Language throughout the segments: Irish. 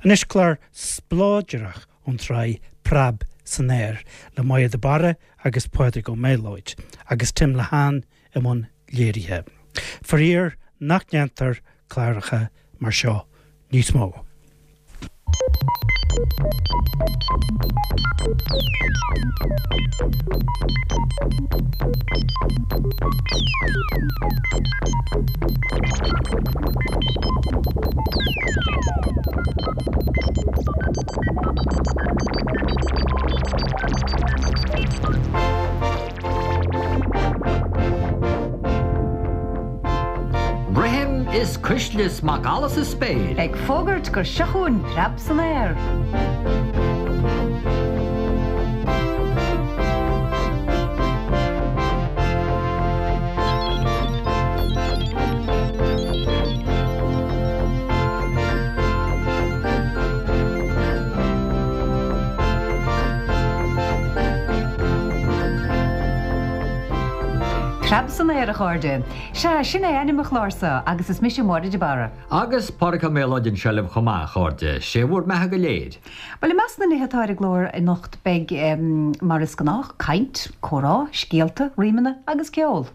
Anois clár spleodrach ón tsraith Preab san Aer le Máire de Barra agus Pádraig Ó Méalóid agus Tim Lehane i mbun léirithe. Faraor nach ndéantar cláracha mar seo níos mó. Rithim is cuisle is macalla sa spéir. Ag fógairt gur seo chugainn preab san aer. Preab san aer, a chairde. Sea, sin é ainm an chláir seo agus is mise Máire de Barra. Agus Pádraig Ó Méalóid anseo libh chomh maith, a chairde. Sé bhur mbeatha go léir. Bhuel, i measc na nithe atá ar an gclár anocht beidh, mar is gnách, caint, comhrá, scéalta, rímeanna agus ceol.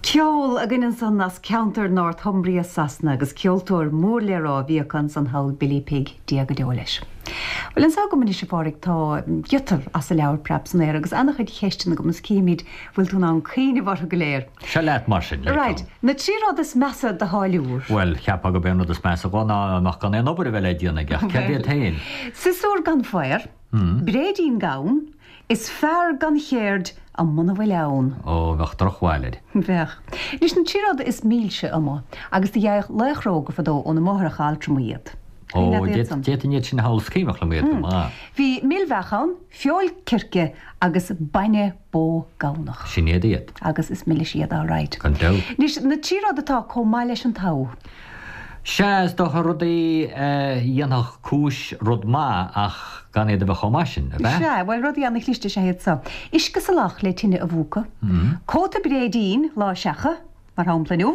Ceol againn ansan as ceantar Northumbria Sasana agus ceoltóir mór le rá a bhí acu ansan thall, Billy Pigg, Dia go deo leis. Bhuel anso agam anois a Phádraig tá giota as an leabhar Preab san Aer agus ana-chuid cheisteanna agam is cífimid bhfuil tú in ann cuimhneamh orthu go léir. Seo leat mar sin, le Right, na trí rud is measa do tháilliúr. Bhuel, cheapfá gurb é an rud is measa dhó ná amach gan aon obair a bheith le déanamh aige, ach céard iad féin? Siosúr gan faobhar, bréidín gann, Is fear gan cheird muna bhfuil ann. Ó, bheadh drochbhail air. Bheadh. Anois na trí rud is milse amuigh, agus do gheibheadh laochra óga fadó óna máithreacha altrama iad. Ó, d'fhéadfainn iad sin a shamhlú, is cuimhneach liom iad go maith. Bhí mil-bheach ann, feoil circe agus bainne bó gamhnach. Sin iad iad. Agus is milis iad alright. Gan dabht. Anois na trí rud atá comh maith leis an togha. Sea, is dócha rudaí a dhéanfadh cúis rud maith ach gan iad a bheith chomh maith sin, ab ea? Sea, bhuel, rudaí ana-chliste is ea iad so. Uisce salach le tine a mhúchadh, cóta bréidín lá seacha, mar shampla inniu,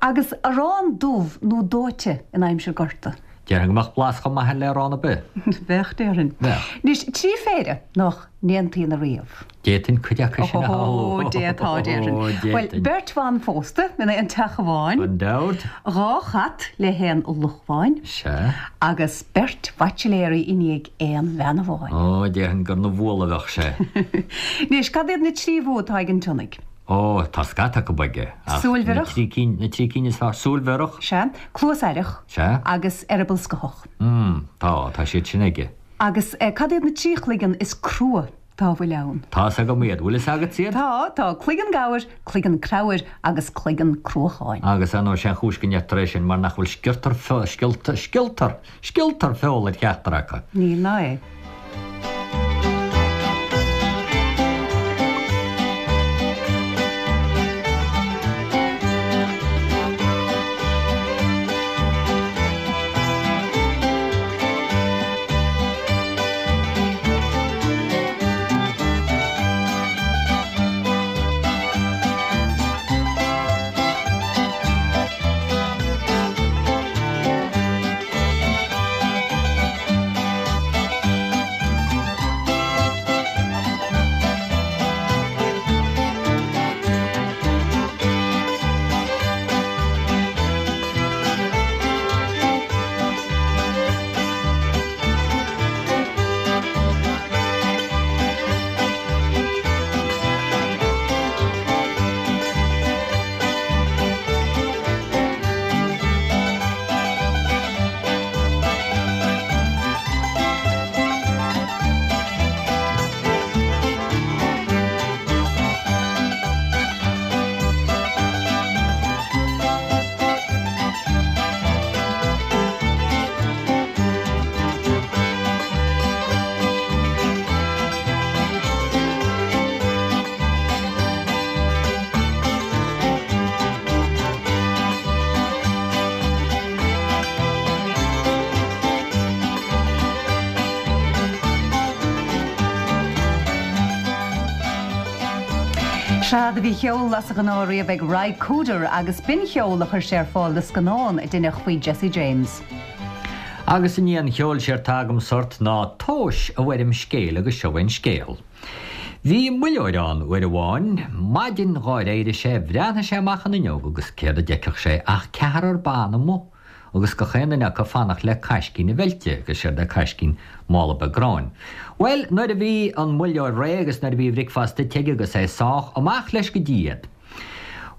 agus arán dubh nó dóite in aimsir gorta. Déarfainn go mbeadh blas chomh maith air le arán ar bith. Bheadh, déarfainn. Bheadh. Anois, trí phéire nach n-aontaíonn ariamh. D'fhéadfainn cuid acu sin a shamhlú. Ó, d'fhéadfá, déarfainn. Ó, Bhuel, d'fhéadfainn. beirt bhan phósta in aon teach amháin. Gan dabht. Dhá chat le haon luch amháin. Sea. Agus beirt bhaitsiléirí i ndiaidh aon bhean amháin. Ó, déarfainn gur 'na bhualadh a bheadh sé. Anois, cad iad na trí bhua atá ag an tsionnaigh? Ó, tá scata acu aige, ach Súil na bhiorach. trí cinn, na trí cinn is fearr, súil bhiorach. Sea. Cluas aireach. Sea. Agus eireaball scothach. Mm, tá, tá siad sin aige. Agus cad iad na trí chloigeann is crua? Dá bhfuil ann. Tá's agam iad. Bhfuil fhios agatsa iad? Tá, tá, cloigeann gabhair, cloigeann creabhair agus cloigeann cruacháin. Agus ar ndóigh sé an chúis go ndeirtear é sin mar nach bhfuil sciortar, scioltar, scioltar, scioltar feola ar cheachtar acu. Níl ná é. Sea, do bhí ceol as an ghnáth riamh ag Ry Cooder agus b'in ceol a chuir sé ar fáil do scannán a deineadh faoi Jesse James. Agus i ndiaidh an cheoil séard tá agamsa ort ná tomhais i bhfoirm scéil agus seo é an scéal. Bhí muilleoir ann uair amháin. Maidin dhár éirigh sé bhreathnaigh sé amach an fhuinneog agus céard a d'fheicfeadh sé ach ceathrar ban amuigh agus gach aon duine acu ag fanacht le caiscín a mheilte agus séard é caiscín mála beag gráin. Bhuel, nuair a bhí an muilleoir réidh agus nuair a bhí a bhricfeasta ite aige agus é sách, amach leis go dtí iad.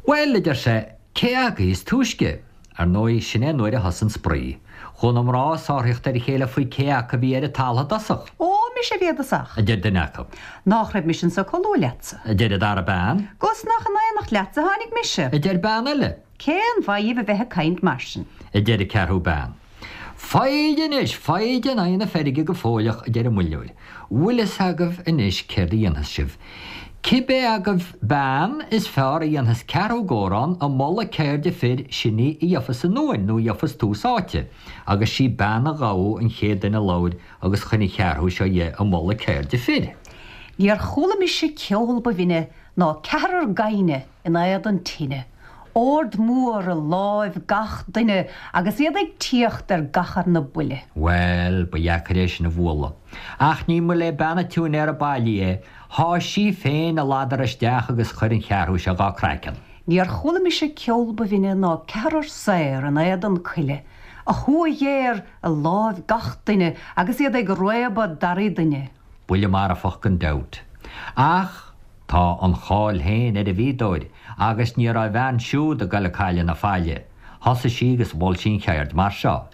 Bhuel, a deir sé, cé agaibh is túisce? Ar ndóigh, sin é an uair a thosaigh an spraoi. Chuaigh na mná ag sáraíocht ar a chéile faoi cé acu a bhí ar an talamh i dtosach. Ó, mise a bhí i dtosach. a deir duine acu. Nách raibh mise anso chomh luath leatsa. a deir an dara bean. 'Gus nach in aonacht leatsa a tháinig mise. a deir bean eile. Cén mhaith dhíbh a bheith ag caint mar sin? a deir an ceathrú bean. Foighid anois, foighid in aghaidh na feirge go fóilleach, a deir an muilleoir. Bhfuil fhios agaibh anois céard a dhéanfas sibh? Cibé agaibh bean is fearr a dhéanfas ceathrú górán i moladh ceirde fir, sin í a gheofas an uain nó a gheofas tús áite. Agus sí bean an ghabha an chéad duine a labhair agus choinnigh an cheathrú seo dhe i moladh ceirde fir. Níor chuala mise ceol ba bhinne ná ceathrar gaibhne in éadan tine, ord mór i láimh gach duine agus iad ag tíocht ar gach arna buille. Bhuel, ba dheacair é sin a bhualadh. Ach ní mba le bean an tsiúinéara bailí é, sháigh sí féin a ladar isteach agus chuir an cheathrú seo dhá craiceann. Níor chuala mise ceol ba bhinne ná ceathrar saor in éadan coille, a thua ghéar i láimh gach duine agus iad ag réabadh daraí duine. Buille marfach gan dabht. Ach tá an cháil féin ar an bhfíodóir agus ní raibh a bhean siúd ag goil ag cailleadh na faille. Thosaigh sí agus mhol sí an cheird mar seo.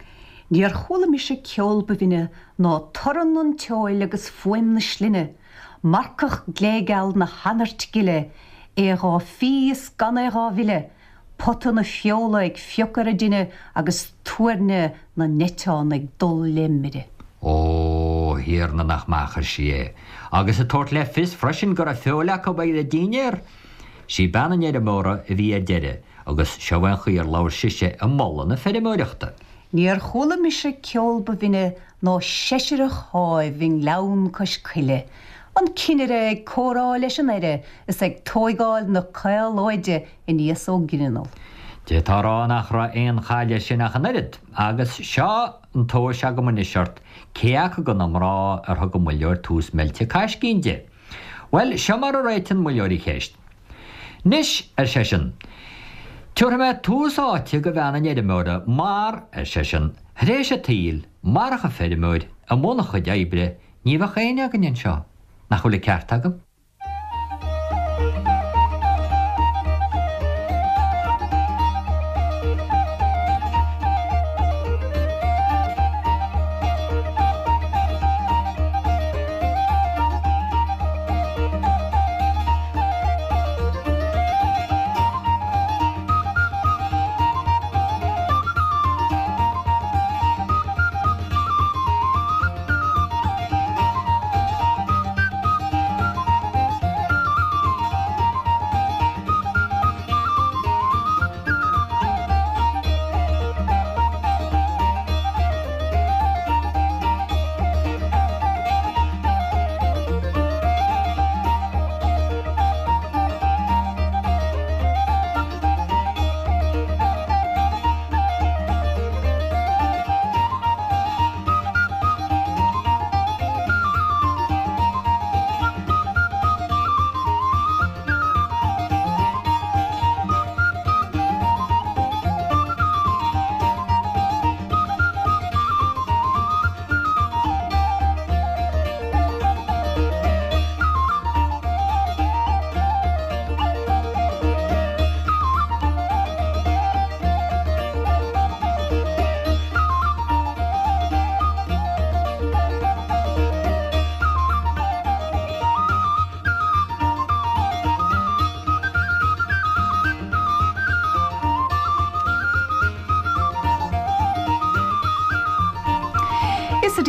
Níor chuala mise ceol ba bhinne ná torann an tseoil agus fuaim na slinne, marcach gléigeal na hanairt gile, é dhá fhí is gan é dhá mhilleadh, pota na feola ag fiuchadh ar an dtine agus tuairne na n-eiteán ag dul le mire. Ó, a Thiarna, nach maith a chuir sí é. Agus ag tabhairt le fios freisin go raibh feoil acu ar a dínnéar. Sí bean an fheirmeora a bhí ar deireadh agus seo é an chaoi ar labhair sise ag moladh na feirmeoireachta. Níor chuala mise ceol ba bhinne ná seisireach sháimh i ngleann cois coille, an cinnire ag comhrá leis an aire is ag tóigeáil na caolóide aníos ó ghrinneall. D'fhéadfá a rá nach raibh aon chaill air sin ach an oiread, agus seo an tomhas agam anois ort, cé acu de na mná ar thug an muilleoir tús meilte caiscín di? Bhuel, seo mar a réitigh an muilleoir an cheist. 'Nois, ar seisean, 'tiúrfaidh mé tús áite go bhean an fheirmeora mar, ar seisean, 'th'réis an tsaoil, marach an feirmeoir, i mbun a chuid oibre, ní bheadh éinne againn anseo. Nach bhfuil an ceart agam?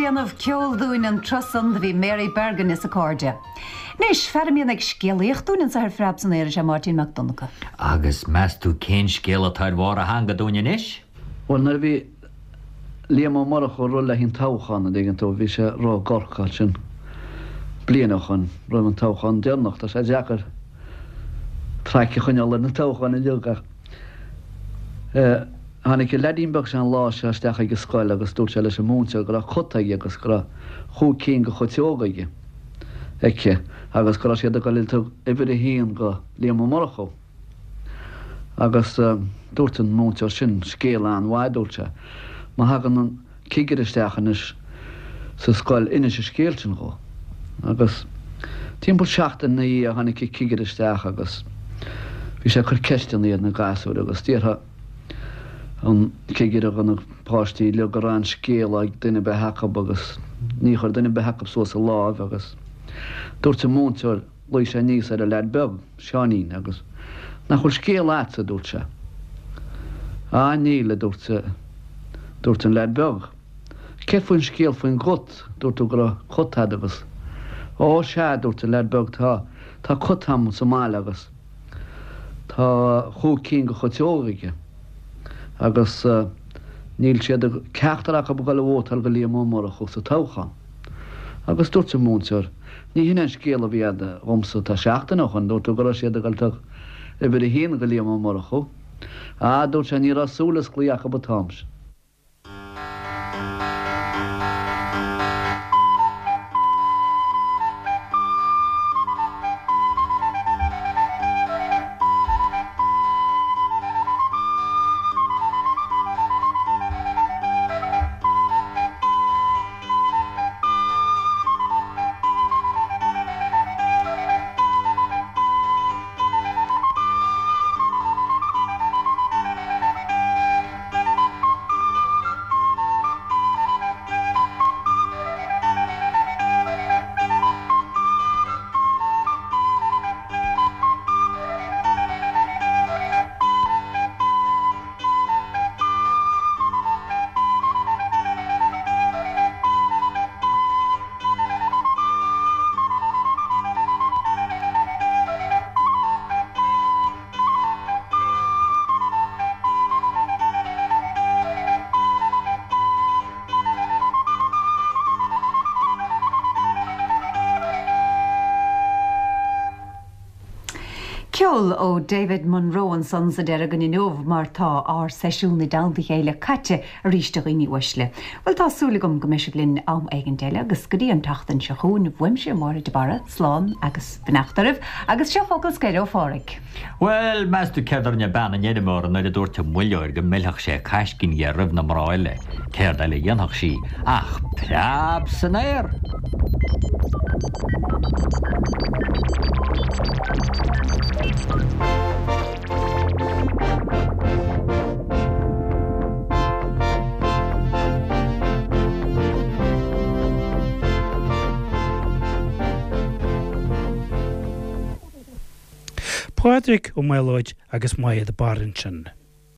déanamh ceoil dúinn an tráth san do bhí Mary Bergin is a cairde. Anois, fear a mbíonn ag scéalaíocht dúinn anso ar Phreab san Aer is ea Máirtín Mac Donncha. Agus meas tú cén scéal atá ar bharr a theanga dúinn anois? Bhuel, nuair a bhí Liam Ó Murchú ag rul le haghaidh an toghchán, an dtuigeann tú, bhí sé ag rith i gCorcaigh ansin bliain ó shoin, roimh an toghchán deireanach. Tá sé deacair traic a choinneáil ar na toghcháin uilig ach eh, tháinig an leaidín beag seo an lá seo isteach ag an scoil agus dúirt sé leis an múinteoir go raibh cut aige agus go raibh chúig cinn de chuiteoga aige, aici agus go raibh siad ag dul ag uimhir a haon go Liam Ó Murchú. Agus dúirt an múinteoir sin scéal an-mhaith, dúirt sé, má thagann an cigire isteach anois sa scoil, inis an scéal sin dhó. Agus timpeall seachtain ina dhiaidh tháinig an cigire isteach agus bhí sé ag cur ceisteanna ar na gasúir agus d'fhiafraigh an cigire de na páistí uilig an raibh aon scéal ag duine ar bith acu agus ní chuir duine ar bith acu suas a láimh agus dúirt an múinteoir Ghlaoigh sé aníos ar an leaid beag, Seáinín, agus Nach bhfuil scéal a'dsa, a dúirt sé. Á, níl, a dúirt, dúirt an leaid beag. Céard faoin scéal faoin gcut, dúirt tú go raibh cut a'd agus. Ó, sea, a dúirt an leaid beag, tá, tá cut a'm sa mbaile agus tá chúig cinn de chuiteoga aige agus níl siad ag, ceachtar acu ag dul a vótáil do Liam Ó Murchú sa toghchán. Agus dúirt an múinteoir, Ní hin an scéal a bhí a'd dhomsa tá seachtain ó shoin, dúirt tú go raibh siad ag dul toghadh uimhir a haon go Liam Ó Murchú. Á, dúirt sé, ní raibh súil osclaithe acu an t-am sin. Ceol ó David Munro ansan sa deireadh againn inniu mar tá ár seisiún i dteannta a chéile caite arís a dhaoine uaisle. Bhuel tá súil agam go mbeidh sibh linn am éigint eile agus go dtí an tseachtain seo chugainn uaimse Máire de Barra, slán agus beannacht oraibh agus seo focal scoir ó Pháraic. Bhuel, meas tú céard a rinne bean an fheirmeora nuair a dúirt an muilleoir go millfeadh sé caiscín dhe roimh na mná eile? Céard eile a dhéanfadh sí ach preab san aer! Pádraig Ó Maolóid agus Máire de Barra ansin.